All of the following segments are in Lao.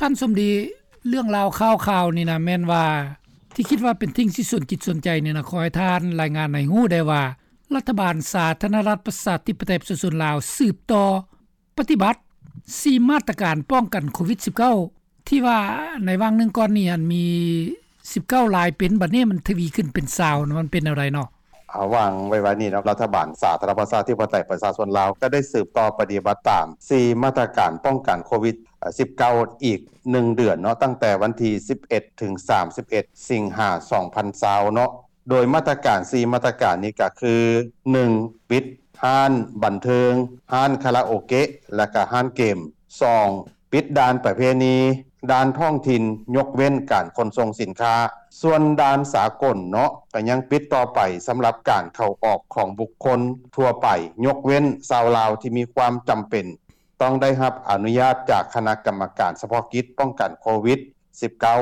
ທ່ານສົມດີ ເລື່ອງລາວຂ່າວໆນີ້ນະ ແມ່ນວ່າ ທີ່ຄິດວ່າເປັນສິ່ງທີ່ສົນຈິດສົນໃຈນີ້ນະ ຂໍໃຫ້ທ່ານລາຍງານໃຫ້ຮູ້ແດ່ວ່າ ລັດຖະບານສາທາລະນະລັດປະຊາທິປະໄຕປະຊາຊົນລາວ ສືບຕໍ່ປະຕິບັດສີ່ມາດຕະການປ້ອງກັນໂຄວິດສິບເກົ້າ ທີ່ວ່າໃນຫວ່າງໜຶ່ງກ່ອນນີ້ຫັ້ນມີສິບເກົ້າລາຍເປັນ ບັດນີ້ມັນທະວີຂຶ້ນເປັນຊາວ ມັນເປັນແນວໃດເນາະ? ອາ ຫວ່າງໄວໆນີ້ເນາະ ລັດຖະບານສາທາລະນະລັດປະຊາທິປະໄຕປະຊາຊົນລາວ ກໍໄດ້ສືບຕໍ່ປະຕິບັດຕາມສີ່ມາດຕະການປ້ອງກັນໂຄວິດສິບເກົ້າ ອີກໜຶ່ງເດືອນເນາະ ຕັ້ງແຕ່ວັນທີສິບເອັດ ເຖິງ ສາມສິບເອັດ ສິງຫາ ສອງພັນຊາວເນາະ. ໂດຍມາດຕະການສີ່ມາດຕະການນີ້ກໍຄື ໜຶ່ງ ປິດຮ້ານບັນເທີງ, ຮ້ານຄາຣາໂອເກະ ແລະກະຮ້ານເກມ. ສອງ ປິດດ່ານປະເພນີ, ດ່ານທ້ອງຖິ່ນ ຍົກເວັ້ນການຂົນສົ່ງສິນຄ້າ. ສ່ວນດ່ານສາກົນເນາະ ກໍຍັງປິດຕໍ່ໄປສຳລັບການເຂົ້າອອກຂອງບຸກຄົນທົ່ວໄປ ຍົກເວັ້ນຊາວລາວທີ່ມີຄວາມຈຳເປັນ ຕ້ອງໄດ້ຮັບອະນຸຍາດຈາກຄະນະກຳມະການສະເພາະກິດປ້ອງກັນໂຄວິດສິບເກົ້າ.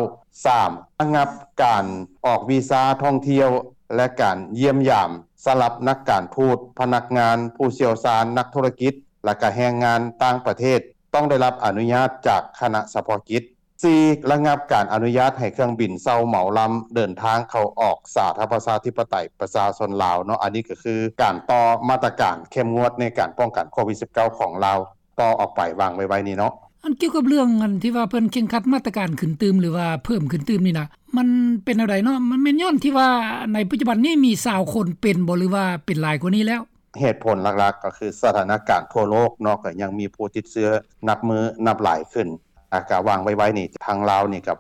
ສາມ ລະງັບການອອກວີຊາທ່ອງທ່ຽວ ແລະ ການຢ້ຽມຢາມສຳລັບນັກການທູດ, ພະນັກງານ, ຜູ້ຊ່ຽວຊານ, ນັກທຸລະກິດ ແລະ ກະແຮງງານຕ່າງປະເທດ ຕ້ອງໄດ້ຮັບອະນຸຍາດຈາກຄະນະສະເພາະກິດ. ສີ່ ລະງັບການອະນຸຍາດໃຫ້ເຄື່ອງບິນເຊົ່າເໝົາລຳເດີນທາງເຂົ້າອອກສາທາລະນະລັດປະຊາທິປະໄຕປະຊາຊົນລາວເນາະ. ອັນນີ້ກໍຄືການຕໍ່ມາດຕະການເຂັ້ມງວດໃນການປ້ອງກັນໂຄວິດສິບເກົ້າຂອງລາວ ຕໍ່ອອກໄປຫວ່າງໄວໆນີ້ເນາະ. ອັນກ່ຽວກັບເລື່ອງອັນທີ່ວ່າເພິ່ນເຄັ່ງຄັດມາດຕະການຂຶ້ນຕື່ມ ຫຼືວ່າເພີ່ມຂຶ້ນຕື່ມນີ້ນະ ມັນເປັນແນວໃດເນາະ? ມັນແມ່ນຍ້ອນທີ່ວ່າໃນປັດຈຸບັນນີ້ມີຊາວຄົນເປັນບໍ່ ຫຼືວ່າເປັນຫຼາຍກວ່ານີ້ແລ້ວ? ເຫດຜົນຫຼັກໆກໍຄືສະຖານະການທົ່ວໂລກເນາະ ກໍຍັງມີຜູ້ຕິດເຊື້ອນັບມື້ນັບຫຼາຍຂຶ້ນ. ອາ ກະຫວ່າງໄວໆນີ້ ທາງລາວນີ້ກ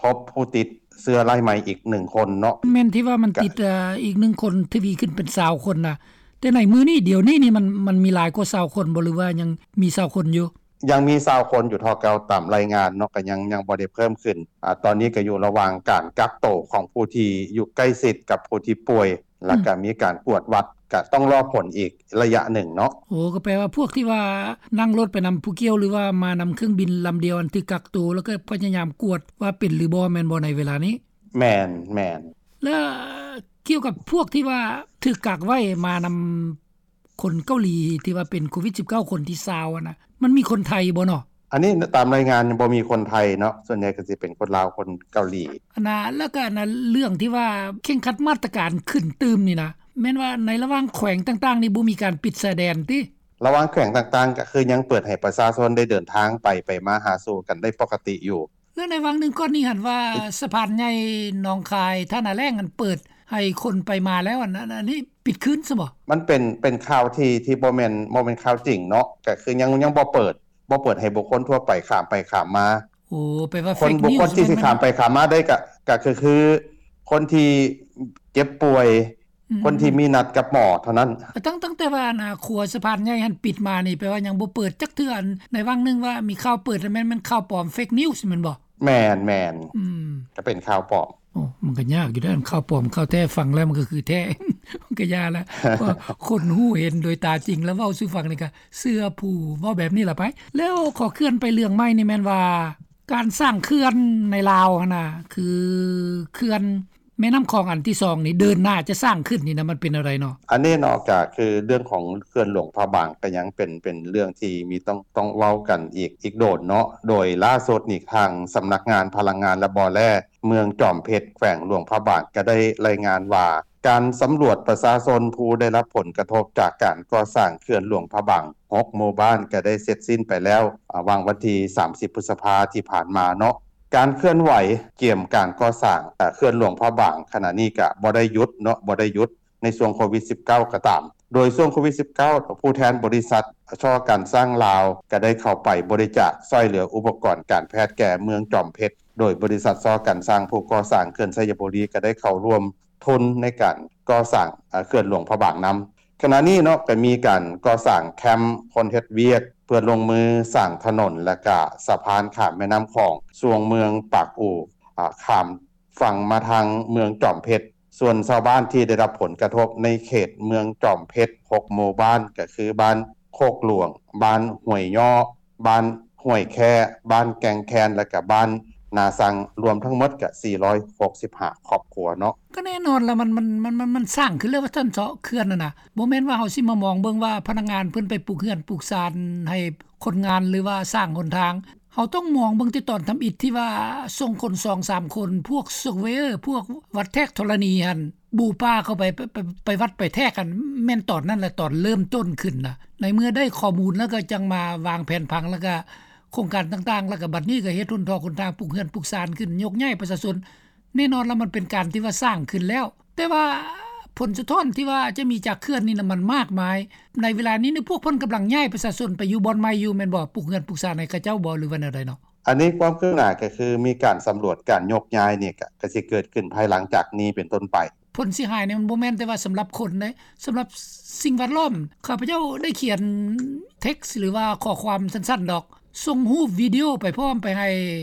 ໍພົບຜູ້ຕິດເຊື້ອລາຍໃໝ່ອີກໜຶ່ງຄົນເນາະ. ແມ່ນທີ່ວ່າມັນຕິດ ເອີ ອີກໜຶ່ງຄົນ ທະວີຂຶ້ນເປັນຊາວຄົນນະ. ແຕ່ໃນມື້ນີ້ ດຽວນີ້ນີ້ ມັນ ມັນມີຫຼາຍກວ່າຊາວຄົນບໍ່ ຫຼືວ່າຍັງມີຊາວຄົນຢູ່? ຍັງມີຊາວຄົນຢູ່ເທົ່າເກົ່າຕາມລາຍງານເນາະ ກໍຍັງ ຍັງບໍ່ໄດ້ເພີ່ມຂຶ້ນ. ອາ ຕອນນີ້ກໍຢູ່ລະຫວ່າງການກັກໂຕຂອງຜູ້ທີ່ຢູ່ໃກ້ຊິດກັບຜູ້ທີ່ປ່ວຍ ແລ້ວກໍ ອືມ ມີການກວດວັດ ກໍຕ້ອງລໍຜົນອີກໄລຍະໜຶ່ງເນາະ. ໂອ້ ກໍແປວ່າພວກທີ່ວ່ານັ່ງລົດໄປນຳຜູ້ກ່ຽວ ຫຼືວ່າມານຳເຄື່ອງບິນລຳດຽວ ອັນຖືກກັກໂຕ ແລ້ວກໍພະຍາຍາມກວດວ່າເປັນຫຼືບໍ່ ແມ່ນບໍ່ໃນເວລານີ້? ແມ່ນ, ແມ່ນ. ແລ້ວກ່ຽວກັບພວກທີ່ວ່າຖືກກັກໄວ້ມານຳ ຄົນເກົາຫຼີທີ່ວ່າເປັນໂຄວິດສິບເກົ້າ ຄົນທີຊາວຫັ້ນນະ ມັນມີຄົນໄທບໍ່ເນາະ? ອັນນີ້ຕາມລາຍງານຍັງບໍ່ມີຄົນໄທເນາະ, ສ່ວນໃຫຍ່ກໍຊິເປັນຄົນລາວ ຄົນເກົາຫຼີ. ອັນນະ ແລ້ວກໍອັນນະ ເລື່ອງທີ່ວ່າເຄັ່ງຄັດມາດຕະການຂຶ້ນຕື່ມນີ້ນະ ແມ່ນວ່າໃນລະຫວ່າງແຂວງຕ່າງໆນີ້ບໍ່ມີການປິດຊາຍແດນຕິ? ລະຫວ່າງແຂວງຕ່າງໆ ກໍຄືຍັງເປີດໃຫ້ປະຊາຊົນໄດ້ເດີນທາງໄປ ໄປມາຫາສູ່ກັນໄດ້ປົກກະຕິຢູ່. ແລ້ວໃນຫວ່າງໜຶ່ງກ່ອນນີ້ຫັ້ນວ່າ ສະພານໃຫຍ່ໜອງຄາຍ ທ່ານາແລ້ງຫັ້ນເປີດໃຫ້ຄົນໄປມາແລ້ວ ອັນ ອັນ ອັນນີ້ປິດຄືນຊະບໍ? ມັນເປັນ ເປັນຂ່າວທີ່ ທີ່ບໍ່ແມ່ນ ບໍ່ແມ່ນຂ່າວຈິງເນາະ, ກໍຄືຍັງ ຍັງບໍ່ເປີດ ບໍ່ເປີດໃຫ້ບຸກຄົນທົ່ວໄປຂ້າມໄປຂ້າມມາ. ໂອ້ ແປວ່າ fake news ແມ່ນ ຄົນທີ່ຊິຂ້າມໄປຂ້າມມາໄດ້ ກໍ ກໍຄື ຄືຄົນທີ່ເຈັບປ່ວຍ ອືມ ຄົນທີ່ມີນັດກັບໝໍເທົ່ານັ້ນ. ຕັ້ງ ຕັ້ງແຕ່ວ່າອັນ ອາ ຂົວສະພານໃຫຍ່ຫັ້ນປິດມານີ້ ແປວ່າຍັງບໍ່ເປີດຈັກເທື່ອ. ອັນໃນຫວ່າງໜຶ່ງວ່າມີຂ່າວເປີດ ແມ່ນ ແມ່ນຂ່າວປອມ fake news ແມ່ນບໍ່? ແມ່ນ, ແມ່ນ. ອືມ ກໍເປັນຂ່າວປອມ. ໂອ້ ມັນກໍຍາກຢູ່ເດ້ ຂ່າວປອມ ຂ່າວແທ້ ຟັງແລ້ວມັນກໍຄືແທ້ ມັນກໍຢ່າລະ. ເພາະຄົນຮູ້ເຫັນໂດຍຕາຈິງ ແລ້ວເວົ້າສູ່ຟັງນີ້ກໍເຊື່ອຜູ້ເວົ້າແບບນີ້ລະໄປ. ແລ້ວຂໍເຄື່ອນໄປເລື່ອງໃໝ່ນີ້ ແມ່ນວ່າການສ້າງເຂື່ອນໃນລາວຫັ້ນນະ ຄືເຂື່ອນ ແມ່ນ້ຳຂອງອັນທີສອງນີ້ ເດີນໜ້າຈະສ້າງຂຶ້ນນີ້ນະ ມັນເປັນແນວໃດເນາະ? ອັນນີ້ເນາະ ກໍຄືເລື່ອງຂອງເຂື່ອນຫຼວງພະບາງ ກໍຍັງເປັນ ເປັນເລື່ອງທີ່ມີຕ້ອງ ຕ້ອງເວົ້າກັນອີກ ອີກໂດນເນາະ. ໂດຍລ່າສຸດນີ້ ທາງສຳນັກງານພະລັງງານ ແລະ ບໍ່ແຮ່ ເມືອງຈອມເພັດ ແຂວງຫຼວງພະບາງ ກໍໄດ້ລາຍງານວ່າ ການສຳຫຼວດປະຊາຊົນຜູ້ໄດ້ຮັບຜົນກະທົບຈາກການກໍ່ສ້າງເຂື່ອນຫຼວງພະບາງ ຫົກ ໝູ່ບ້ານ ກໍໄດ້ເສັດສິ້ນໄປແລ້ວ ອາ ຫວ່າງວັນທີ ສາມສິບ ພຶດສະພາທີ່ຜ່ານມາເນາະ. ການເຄື່ອນໄຫວກຽມການກໍ່ສ້າງ ອາ ເຂື່ອນຫຼວງພະບາງ ຂະນະນີ້ກະບໍ່ໄດ້ຢຸດເນາະ ບໍ່ໄດ້ຢຸດໃນຊ່ວງໂຄວິດສິບເກົ້າກໍຕາມ. ໂດຍຊ່ວງໂຄວິດສິບເກົ້າ ຜູ້ແທນບໍລິສັດ ຊໍ ການຊ່າງລາວ ກໍໄດ້ເຂົ້າໄປບໍລິຈາກຊ່ອຍເຫຼືອອຸປະກອນການແພດແກ່ເມືອງຈອມເພັດ, ໂດຍບໍລິສັດ ຊໍ ການຊ່າງ ຜູ້ກໍ່ສ້າງເຂື່ອນໄຊຍະບູລີ ກໍໄດ້ເຂົ້າຮ່ວມທຶນໃນການກໍ່ສ້າງ ອາ ເຂື່ອນຫຼວງພະບາງນຳ. ຂະນະນີ້ເນາະ ກໍມີການກໍ່ສ້າງແຄມຄົນເຮັດວຽກ ເພື່ອລົງມືສ້າງຖະໜົນ ແລະກະສະພານຂ້າມແມ່ນ້ຳຂອງ ຊ່ວງເມືອງປາກອູ່ ອາ ຂ້າມຝັ່ງມາທາງເມືອງຈອມເພັດ. ສ່ວນຊາວບ້ານທີ່ໄດ້ຮັບຜົນກະທົບໃນເຂດເມືອງຈອມເພັດ ຫົກ ໝູ່ບ້ານ ກໍຄືບ້ານໂຄກຫຼວງ, ບ້ານຫ້ວຍຍໍ້, ບ້ານຫ້ວຍແຄ້, ບ້ານແກ່ງແຄນ ແລະກະບ້ານນາຊັງ ລວມທັງໝົດກະ ສີ່ຮ້ອຍຫົກສິບຫ້າ ຄອບຄົວເນາະ. ກໍແນ່ນອນລະ ມັນ ມັນ ມັນ ມັນ ມັນສ້າງຂຶ້ນແລ້ວວ່າຊັ້ນເທາະ ເຂື່ອນຫັ້ນນະ. ບໍ່ແມ່ນວ່າເຮົາຊິມາມອງເບິ່ງວ່າພະນັກງານເພິ່ນໄປປູກເຮືອນປູກຊານໃຫ້ຄົນງານ ຫຼືວ່າສ້າງຫົນທາງ. ເຮົ ເຮົາຕ້ອງມອງເບິ່ງແຕ່ຕອນທຳອິດທີ່ວ່າສົ່ງຄົນສອງສາມຄົນ ພວກ surveyor ພວກວັດແທກທໍລະນີຫັ້ນ ບຸກປ່າເຂົ້າໄປ ໄປ ໄປ ໄປວັດໄປແທກຫັ້ນ ແມ່ນຕອນນັ້ນແຫຼະ ຕອນເລີ່ມຕົ້ນຂຶ້ນນະ. ໃນເມື່ອໄດ້ຂໍ້ມູນແລ້ວກໍຈັ່ງມາວາງແຜນຜັງ ແລ້ວກໍໂຄງການຕ່າງໆ ແລ້ວກໍບັດນີ້ກໍເຮັດຫົນຖອກຫົນທາງ ປຸກເຮືອນປຸກຊານຂຶ້ນ ຍົກຍ້າຍປະຊາຊົນ. ແນ່ນອນລະ ມັນເປັນການທີ່ວ່າສ້າງຂຶ້ນແລ້ວ ແຕ່ວ່າຜົນສະທ້ອນທີ່ວ່າຈະມີຈາກເຂື່ອນນີ້ນະ ມັນມາກມາຍ. ໃນເວລານີ້ນີ້ ພວກເພິ່ນກຳລັງຍ້າຍປະຊາຊົນໄປຢູ່ບ່ອນໃໝ່ຢູ່ແມ່ນບໍ່? ປຸກເຮືອນປຸກຊານໃຫ້ເຂົາເຈົ້າບໍ່ ຫຼືວ່າແນວໃດເນາະ? ອັນນີ້ຄວາມຄືບໜ້າກໍຄືມີການສຳຫຼວດການຍົກຍ້າຍນີ້ ກໍ ກໍຊິເກີດຂຶ້ນພາຍຫຼັງຈາກນີ້ເປັນຕົ້ນໄປ. ຜົນເສຍຫາຍນີ້ມັນບໍ່ແມ່ນແຕ່ວ່າສຳລັບຄົນເດ້ ສຳລັບສິ່ງແວດລ້ອມ. ຂ້າພະເຈົ້າໄດ້ຂຽນ text ຫຼືວ່າຂໍ້ຄວາມສັ້ນໆດອກ ສົ່ງຮູບວິດີໂອໄປພ້ອມໄປໃຫ້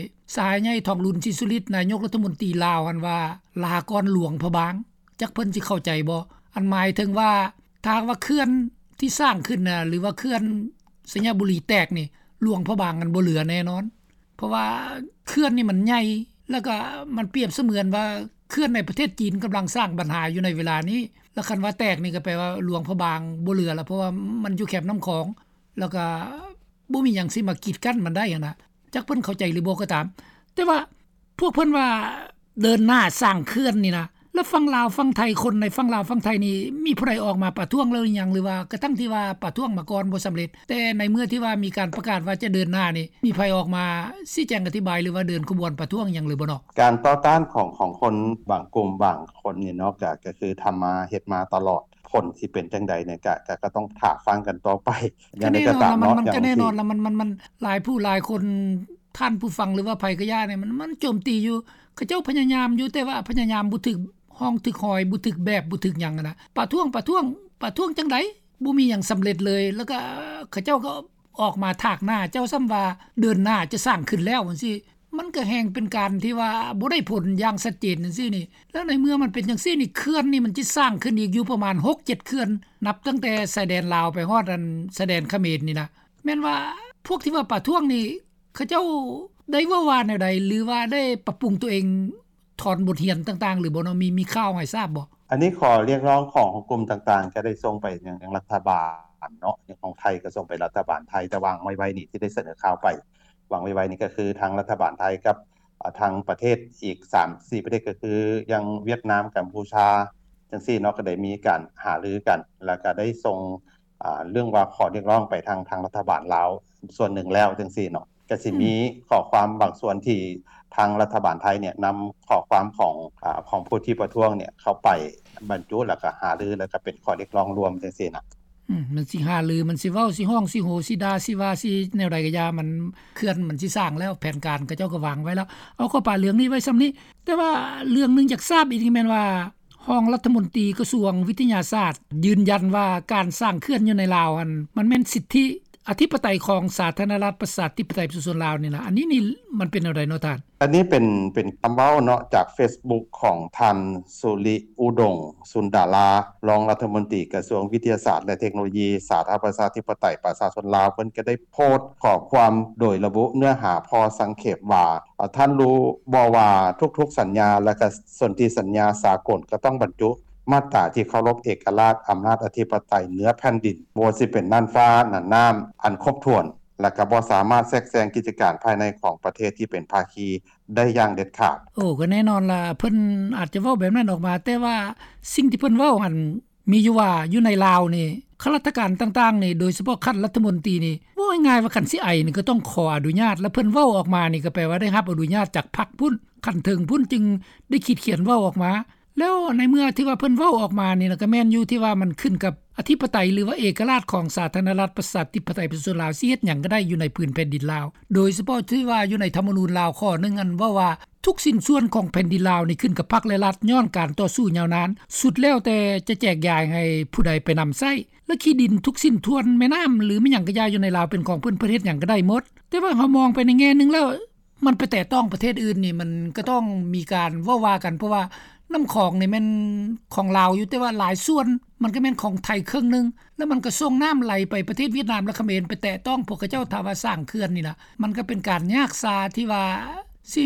ສະຫາຍໃຫຍ່ ທອງລຸນ ສີສຸລິດ ນາຍົກລັດຖະມົນຕີລາວຫັ້ນວ່າ ລາກ່ອນຫຼວງພະບາງ. ຈັກເພິ່ນຊິເຂົ້າໃຈບໍ່? ອັນໝາຍເຖິງວ່າ ຖ້າຫາກວ່າເຂື່ອນທີ່ສ້າງຂຶ້ນນະ ຫຼືວ່າເຂື່ອນໄຊຍະບູລີແຕກນີ້ ຫຼວງພະບາງນັ້ນບໍ່ເຫຼືອແນ່ນອນ. ເພາະວ່າເຂື່ອນນີ້ມັນໃຫຍ່ ແລ້ວກໍມັນປຽບສະເໝືອນວ່າເຂື່ອນໃນປະເທດຈີນກຳລັງສ້າງບັນຫາຢູ່ໃນເວລານີ້ ແລ້ວຄັນວ່າແຕກນີ້ກໍແປວ່າຫຼວງພະບາງບໍ່ເຫຼືອແລ້ວ ເພາະວ່າມັນຢູ່ແຄມນ້ຳຂອງ ແລ້ວກໍບໍ່ມີຫຍັງຊິມາກີດກັ້ນມັນໄດ້ຫັ້ນນະ. ຈັກເພິ່ນເຂົ້າໃຈຫຼືບໍ່ກໍຕາມ ແຕ່ວ່າພວກເພິ່ນວ່າເດີນໜ້າສ້າງເຂື່ອນນີ້ນະ ແລ້ວຝັ່ງລາວຝັ່ງໄທ ຄົນໃນຝັ່ງລາວຝັ່ງໄທນີ້ ມີຜູ້ໃດອອກມາປະທ້ວງແລ້ວຫຼືຍັງ ຫຼືວ່າກະທັ່ງທີ່ວ່າປະທ້ວງມາກ່ອນບໍ່ສຳເລັດ ແຕ່ໃນເມື່ອທີ່ວ່າມີການປະກາດວ່າຈະເດີນໜ້ານີ້ ມີໃຜອອກມາຊີ້ແຈງອະທິບາຍ ຫຼືວ່າເດີນຂະບວນປະທ້ວງຫຍັງຫຼືບໍ່ເນາະ? ການຕໍ່ຕ້ານຂອງ ຂອງຄົນບາງກຸ່ມບາງຄົນນີ້ເນາະ ກະ ກະຄືທຳມາເຮັດມາຕະຫຼອດ ຜົນຊິເປັນຈັ່ງໃດນີ້ ກະ ກະ ກະຕ້ອງຖ້າຟັງກັນຕໍ່ໄປ. ຢ່າງໃດກໍຕາມເນາະ ມັນ ມັນກໍແນ່ນອນລະ ມັນ ມັນ ມັນຫຼາຍຜູ້ຫຼາຍຄົນ ທ່ານຜູ້ຟັງ ຫຼືວ່າໃຜກໍຢ່ານີ້ ມັນ ມັນໂຈມຕີຢູ່. ເຂົາເຈົ້າພະຍາຍາມຢູ່ ແຕ່ວ່າພະຍາຍາມບໍ່ຖືກຮ່ອງຖືກຮອຍ ບໍ່ຖືກແບບ ບໍ່ຖືກຫຍັງຫັ້ນນະ. ປະທ້ວງ ປະທ້ວງ ປະທ້ວງຈັ່ງໃດ? ບໍ່ມີຫຍັງສຳເລັດເລີຍ. ແລ້ວກໍເຂົາເຈົ້າກໍອອກມາຖາກໜ້າເຈົ້າຊ້ຳວ່າເດີນໜ້າຈະສ້າງຂຶ້ນແລ້ວຈັ່ງຊີ້ ມັນກໍແຮ່ງເປັນການທີ່ວ່າບໍ່ໄດ້ຜົນຢ່າງຊັດເຈນຈັ່ງຊີ້ນີ້. ແລ້ວໃນເມື່ອມັນເປັນຈັ່ງຊີ້ນີ້ ເຂື່ອນນີ້ມັນຈະສ້າງຂຶ້ນອີກຢູ່ປະມານຫົກເຈັດເຂື່ອນ ນັບຕັ້ງແຕ່ຊາຍແດນລາວໄປຮອດອັນຊາຍແດນຂະເໝນນີ້ນະ. ແມ່ນວ່າພວກທີ່ວ່າປະທ້ວງນີ້ ເຂົາເຈົ້າໄດ້ເວົ້າວ່າແນວໃດ ຫຼືວ່າໄດ້ປັບປຸງຕົວເອງ ຖອນບົດຮຽນຕ່າງໆ ຫຼືບໍ່ເນາະ? ມີ ມີຂ່າວໃຫ້ຊາບບໍ່? ອັນນີ້ຂໍ້ຮຽກຮ້ອງຂອງ ຂອງກຸ່ມຕ່າງໆ ກໍໄດ້ສົ່ງໄປຍັງ ຍັງລັດຖະບານເນາະ ຂອງໄທກໍສົ່ງໄປລັດຖະບານໄທ ແຕ່ວາງໄວ້ໆນີ້ ທີ່ໄດ້ສະເໜີຂ່າວໄປ ວາງໄວ້ໆນີ້ ກໍຄືທາງລັດຖະບານໄທກັບ ອາ ທາງປະເທດອີກສາມສີ່ປະເທດ ກໍຄືຢ່າງຫວຽດນາມ ກຳປູຊາ ຈັ່ງຊີ້ເນາະ ກໍໄດ້ມີການຫາລືກັນ ແລ້ວກໍໄດ້ສົ່ງ ອາ ເລື່ອງວ່າຂໍ້ຮຽກຮ້ອງໄປທາງ ທາງລັດຖະບານລາວສ່ວນໜຶ່ງແລ້ວຈັ່ງຊີ້ເນາະ. ກໍຊິມີ ອືມ ຂໍ້ຄວາມບາງສ່ວນທີ່ທາງລັດຖະບານໄທເນຍ ນຳຂໍ້ຄວາມຂອງ ອາ ຂອງຜູ້ທີ່ປະທ້ວງເນຍ ເຂົ້າໄປບັນຈຸ ແລ້ວກໍຫາລື ແລ້ວກໍເປັນຂໍ້ຮຽກຮ້ອງລວມຈັ່ງຊີ້ນະ. ອືມ ມັນຊິຫາລື ມັນຊິເວົ້າ ຊິຮ້ອງ ຊິໂຫ ຊິດ່າ ຊິວ່າ ຊິແນວໃດກໍຢ່າ ມັນ ເຂື່ອນມັນຊິສ້າງແລ້ວ ແຜນການເຂົາເຈົ້າກໍວາງໄວ້ແລ້ວ. ເອົາ ຂໍປະເລື່ອງນີ້ໄວ້ສ່ຳນີ້. ແຕ່ວ່າເລື່ອງໜຶ່ງຢາກຊາບອີກແມ່ນວ່າ ຮອງລັດຖະມົນຕີກະຊວງວິທະຍາສາດ ຢືນຢັນວ່າການສ້າງເຂື່ອນຢູ່ໃນລາວຫັ້ນ ມັນແມ່ນສິດທິອະທິປະໄຕຂອງສາທາລະນະລັດ ປະຊາທິປະໄຕ ປະຊາຊົນລາວນີ້ນະ. ອັນນີ້ນີ້ມັນເປັນແນວໃດເນາະທ່ານ? ອັນນີ້ເປັນ ເປັນຄຳເວົ້າເນາະ ຈາກເຟສບຸກຂອງທ່ານ ສຸລິອຸດົງ ສຸນດາລາ ຮອງລັດຖະມົນຕີກະຊວງວິທະຍາສາດ ແລະ ເທັກໂນໂລຢີ ສາທາລະນະລັດ ປະຊາທິປະໄຕ ປະຊາຊົນລາວ. ເພິ່ນກໍໄດ້ໂພສຂໍ້ຄວາມໂດຍລະບຸເນື້ອຫາພໍສັງເຂບວ່າ ອາ ທ່ານຮູ້ບໍ່ວ່າທຸກໆສັນຍາ ແລະ ກະສົນທິສັນຍາສາກົນກໍຕ້ອງບັນຈຸມາດຕາທີ່ເຄົາລົບເອກະລາດ ອຳນາດອະທິປະໄຕເໜືອແຜ່ນດິນ ບໍ່ວ່າຊິເປັນນ່ານຟ້ານ່ານນ້ຳ ອັນຄົບຖ້ວນ ແລະ ກໍບໍ່ສາມາດແຊກແຊງກິດຈະການພາຍໃນຂອງປະເທດທີ່ເປັນພາຄີໄດ້ຢ່າງເດັດຂາດ. ໂອ້ ກໍແນ່ນອນລະ ເພິ່ນອາດຈະເວົ້າແບບນັ້ນອອກມາ ແຕ່ວ່າສິ່ງທີ່ເພິ່ນເວົ້າຫັ້ນ ມີຢູ່ວ່າຢູ່ໃນລາວນີ້ ຂ້າລາຊະການຕ່າງໆນີ້ ໂດຍສະເພາະຂັ້ນລັດຖະມົນຕີນີ້ ເວົ້າງ່າຍໆວ່າຄັນຊິໄອນີ້ກໍຕ້ອງຂໍອະນຸຍາດ ແລະ ເພິ່ນເວົ້າອອກມານີ້ກໍແປວ່າໄດ້ຮັບອະນຸຍາດຈາກພັກພຸ້ນ ຂັ້ນເທິງພຸ້ນ ຈຶ່ງໄດ້ຂີດຂຽນເວົ້າອອກມາ. ແລ້ວໃນເມື່ອທີ່ວ່າເພິ່ນເວົ້າອອກມານີ້ນະ ກໍແມ່ນຢູ່ທີ່ວ່າມັນຂຶ້ນກັບອະທິປະໄຕ ຫຼືວ່າເອກະລາດຂອງສາທາລະນະລັດ ປະຊາທິປະໄຕ ປະຊາຊົນລາວ ຊິເຮັດຫຍັງກໍໄດ້ຢູ່ໃນພື້ນແຜ່ນດິນລາວ ໂດຍສະເພາະທີ່ວ່າຢູ່ໃນທຳມະນູນລາວຂໍ້ໜຶ່ງ ອັນເວົ້າວ່າ ທຸກຊິ້ນສ່ວນຂອງແຜ່ນດິນລາວນີ້ຂຶ້ນກັບພັກ ແລະ ລັດ ຍ້ອນການຕໍ່ສູ້ຍາວນານ ສຸດແລ້ວແຕ່ຈະແຈກຢາຍໃຫ້ຜູ້ໃດໄປນຳໃຊ້ ແລະ ທີ່ດິນທຸກຊິ້ນສ່ວນ ແມ່ນ້ຳ ຫຼື ແມ່ນຫຍັງກະຢ່າຢູ່ໃນລາວເປັນຂອງເພິ່ນ ເພິ່ນເຮັດຫຍັງກະໄດ້ໝົດ. ແຕ່ວ່າເຮົາມອງໄປໃນແງ່ໜຶ່ງແລ້ວ ມັນໄປແຕະຕ້ອງປະເທດອື່ນນີ້ ມັນກະຕ້ອງມີການເວົ້າວ່າກັນ ເພາະວ່ານ້ຳຂອງນີ້ແມ່ນຂອງລາວຢູ່ ແຕ່ວ່າຫຼາຍສ່ວນມັນກະແມ່ນຂອງໄທເຄິ່ງໜຶ່ງ ແລ້ວມັນກະສົ່ງນ້ຳໄຫຼໄປປະເທດຫວຽດນາມ ແລະ ຂະເໝນ ໄປແຕະຕ້ອງພວກເຂົາເຈົ້າ ຖ້າວ່າສ້າງເຂື່ອນນີ້ນະ ມັນກະເປັນການຍາກຊາທີ່ວ່າ ຊິ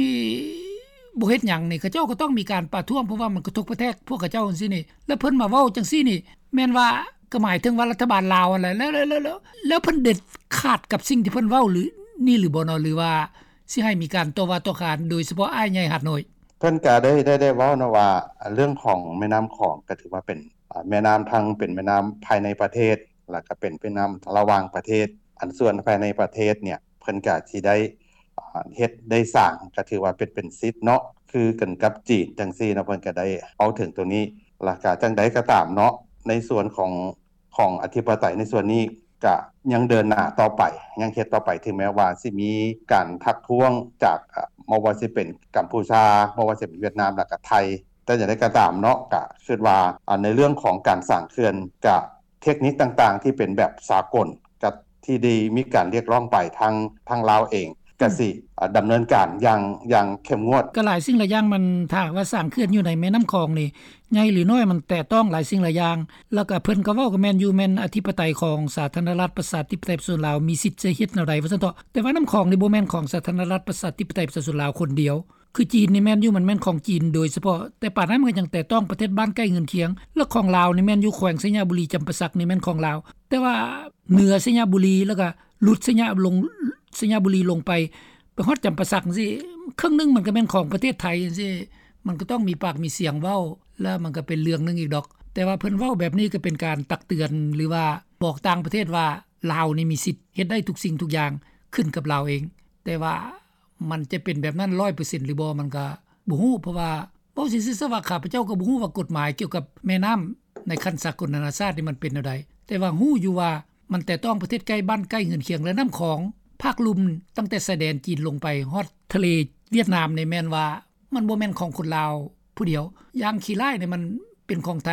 ບໍ່ເຮັດຫຍັງນີ້ ເຂົາເຈົ້າກໍຕ້ອງມີການປະທ້ວງ ເພາະວ່າມັນກະທົບກະແທກພວກເຂົາເຈົ້າຈັ່ງຊີ້ນີ້ ແລ້ວເພິ່ນມາເວົ້າຈັ່ງຊີ້ນີ້ ແມ່ນວ່າກໍໝາຍເຖິງວ່າລັດຖະບານລາວຫັ້ນແຫຼະ ແລ້ວ ແລ້ວ ແລ້ວ ແລ້ວເພິ່ນເດັດຂາດກັບສິ່ງທີ່ເພິ່ນເວົ້າຫຼື ນີ້ຫຼືບໍ່ເນາະ ຫຼືວ່າ ຊິໃຫ້ມີການຕໍ່ວ່າຕໍ່ຂານ ໂດຍສະເພາະອ້າຍໃຫຍ່ຫາດນ້ອຍ. ເພິ່ນກະໄດ້ ໄດ້ ໄດ້ເວົ້າເນາະວ່າ ເລື່ອງຂອງແມ່ນ້ຳຂອງກະຖືວ່າເປັນ ອາ ແມ່ນ້ຳທັງເປັນແມ່ນ້ຳພາຍໃນປະເທດ ແລ້ວກະເປັນແມ່ນ້ຳລະຫວ່າງປະເທດ. ອັນສ່ວນພາຍໃນປະເທດເນ່ຍ ເພິ່ນກະຊິໄດ້ ອາ ເຮັດໄດ້ສ້າງ ກະຖືວ່າເປັນ ເປັນສິດເນາະ ຄືກັນກັບຈີນຈັ່ງຊີ້ເນາະ. ເພິ່ນກະໄດ້ເວົ້າເຖິງໂຕນີ້ ແລ້ວກະຈັ່ງໃດກະຕາມເນາະ ໃນສ່ວນຂອງ ຂອງອະທິປະໄຕໃນສ່ວນນີ້ກະຍັງເດີນໜ້າຕໍ່ໄປ ຍັງເຮັດຕໍ່ໄປ ເຖິງແມ້ວ່າຊິມີການທັກທ້ວງຈາກ ອາ ບໍ່ວ່າຊິເປັນກຳປູຊາ ບໍ່ວ່າຊິເປັນຫວຽດນາມ ແລ້ວກະໄທ. ແຕ່ຢ່າງໃດກໍຕາມເນາະ ກະຄິດວ່າ ອາ ໃນເລື່ອງຂອງການສ້າງເຂື່ອນ ກະເທັກນິກຕ່າງໆທີ່ເປັນແບບສາກົນ ກະທີ່ໄດ້ມີການຮຽກຮ້ອງໄປ ທາງ ທາງລາວເອງ ກະ ອືມ ຊິ ອາ ດຳເນີນການຢ່າງ ຢ່າງເຂັ້ມງວດ. ກະຫຼາຍສິ່ງຫຼາຍຢ່າງ ມັນ ຖ້າຫາກວ່າສ້າງເຂື່ອນຢູ່ໃນແມ່ນ້ຳຂອງນີ້ ໃຫຍ່ຫຼືນ້ອຍ ມັນແຕະຕ້ອງຫຼາຍສິ່ງຫຼາຍຢ່າງ. ແລ້ວກະເພິ່ນກະເວົ້າກະແມ່ນຢູ່ ແມ່ນອະທິປະໄຕຂອງສາທາລະນະລັດປະຊາທິປະໄຕປະຊາຊົນລາວ ມີສິດຈະເຮັດແນວໃດວ່າຊັ້ນເຖາະ. ແຕ່ວ່ານ້ຳຂອງນີ້ບໍ່ແມ່ນຂອງສາທາລະນະລັດປະຊາທິປະໄຕປະຊາຊົນລາວຄົນດຽວ. ຄືຈີນນີ້ແມ່ນຢູ່ ມັນແມ່ນຂອງຈີນໂດຍສະເພາະ, ແຕ່ປານນັ້ນມັນກໍຍັງແຕະຕ້ອງປະເທດບ້ານໃກ້ເຮືອນຄຽງ ແລະ ຂອງລາວນີ້ແມ່ນຢູ່ແຂວງໄຊຍະບູລີ ຈຳປາສັກນີ້ແມ່ນຂອງລາວ. ແຕ່ວ່າເໜືອໄຊຍະບູລີ ແລ້ວກໍຫຼຸດໄຊຍະ ລົງ ໄຊຍະບູລີລົງໄປ ໄປຮອດຈຳປາສັກຈັ່ງຊີ້ ເຄິ່ງໜຶ່ງມັນກໍແມ່ນຂອງປະເທດໄທຈັ່ງຊີ້ ມັນກໍຕ້ອງມີປາກມີສຽງເວົ້າ ແລ້ວມັນກໍເປັນເລື່ອງໜຶ່ງອີກດອກ. ແຕ່ວ່າເພິ່ນເວົ້າແບບນີ້ກໍເປັນການຕັກເຕືອນ ຫຼືວ່າບອກຕ່າງປະເທດວ່າ ລາວນີ້ມີສິດເຮັດໄດ້ທຸກສິ່ງທຸກຢ່າງ ຂຶ້ນກັບລາວເອງ. ແຕ່ວ່າ ມັນຈະເປັນແບບນັ້ນຮ້ອຍເປີເຊັນຫຼືບໍ່ ມັນກະບໍ່ຮູ້ ເພາະວ່າເວົ້າຊື່ໆຊະວ່າ ຂ້າພະເຈົ້າກໍບໍ່ຮູ້ວ່າກົດໝາຍກ່ຽວກັບແມ່ນ້ຳໃນຂັ້ນສາກົນນານາຊາດນີ້ມັນເປັນແນວໃດ, ແຕ່ວ່າຮູ້ຢູ່ວ່າມັນແຕະຕ້ອງປະເທດໃກ້ບ້ານໃກ້ເຮືອນຄຽງ ແລະ ນ້ຳຂອງພາກລຸ່ມຕັ້ງແຕ່ຊາຍແດນຈີນລົງໄປຮອດທະເລຫວຽດນາມນີ້ ແມ່ນວ່າມັນບໍ່ແມ່ນຂອງຄົນລາວຜູ້ດຽວ. ຢ່າງຂີ້ຮ້າຍນີ້ມັນເປັນຂອງໄທ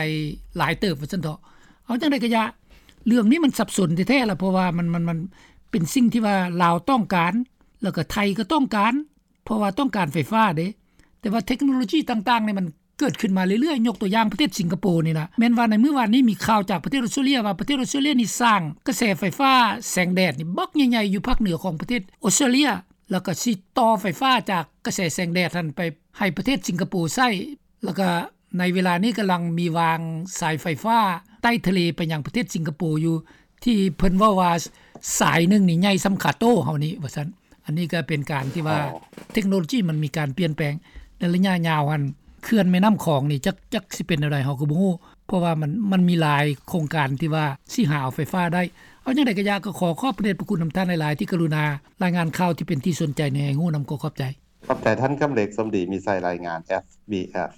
ຫຼາຍເຕີບວ່າຊັ້ນເຖາະ. ເອົາຈັ່ງໃດກໍຢ່າ ເລື່ອງນີ້ມັນສັບສົນແທ້ໆລະ ເພາະວ່າມັນ ມັນ ມັນເປັນສິ່ງທີ່ວ່າລາວຕ້ອງການ ແລ້ວກໍໄທກໍຕ້ອງການ ເພາະວ່າຕ້ອງການໄຟຟ້າເດ້. ແຕ່ວ່າເທັກໂນໂລຊີຕ່າງໆນີ້ມັນເກີດຂຶ້ນມາເລື້ອຍໆ, ຍົກຕົວຢ່າງປະເທດສິງກະໂປນີ້ນະ ແມ່ນວ່າໃນມື້ວານນີ້ມີຂ່າວຈາກປະເທດອົດສະຕຣາເລຍວ່າ ປະເທດອົດສະຕຣາເລຍນີ້ສ້າງກະແສໄຟຟ້າແສງແດດນີ້ບັກໃຫຍ່ໆຢູ່ພາກເໜືອຂອງປະເທດອົດສະຕຣາເລຍ ແລ້ວກໍຊິຕໍ່ໄຟຟ້າຈາກກະແສແສງແດດຫັ້ນໄປໃຫ້ປະເທດສິງກະໂປໃຊ້. ແລ້ວກໍໃນເວລານີ້ກຳລັງມີວາງສາຍໄຟຟ້າໃຕ້ທະເລໄປຍັງປະເທດສິງກະໂປຢູ່ ທີ່ເພິ່ນເວົ້າວ່າສາຍໜຶ່ງນີ້ໃຫຍ່ສ່ຳຂາໂຕ້ເຮົານີ້ວ່າຊັ້ນ. ອັນນີ້ກໍເປັນການທີ່ວ່າ ອໍ ເທັກໂນໂລຊີມັນມີການປ່ຽນແປງ. ໃນໄລຍະຍາວຫັ້ນ ເຂື່ອນແມ່ນ້ຳຂອງນີ້ ຈັກ ຈັກຊິເປັນແນວໃດເຮົາກໍບໍ່ຮູ້ ເພາະວ່າມັນ ມັນມີຫຼາຍໂຄງການທີ່ວ່າຊິຫາເອົາໄຟຟ້າໄດ້. ເອົາຈັ່ງໃດກໍຢ່າ ກໍຂໍຂອບພະເດດພະຄຸນນຳທ່ານຫຼາຍໆ ທີ່ກະລຸນາລາຍງານຂ່າວທີ່ເປັນທີ່ສົນໃຈໃຫ້ຮູ້ນຳ. ກໍຂອບໃຈ. ຂອບໃຈທ່ານ ກຳເລັກ ສົມດີມີໄຊ ລາຍງານ ເອັສບີເອັສ.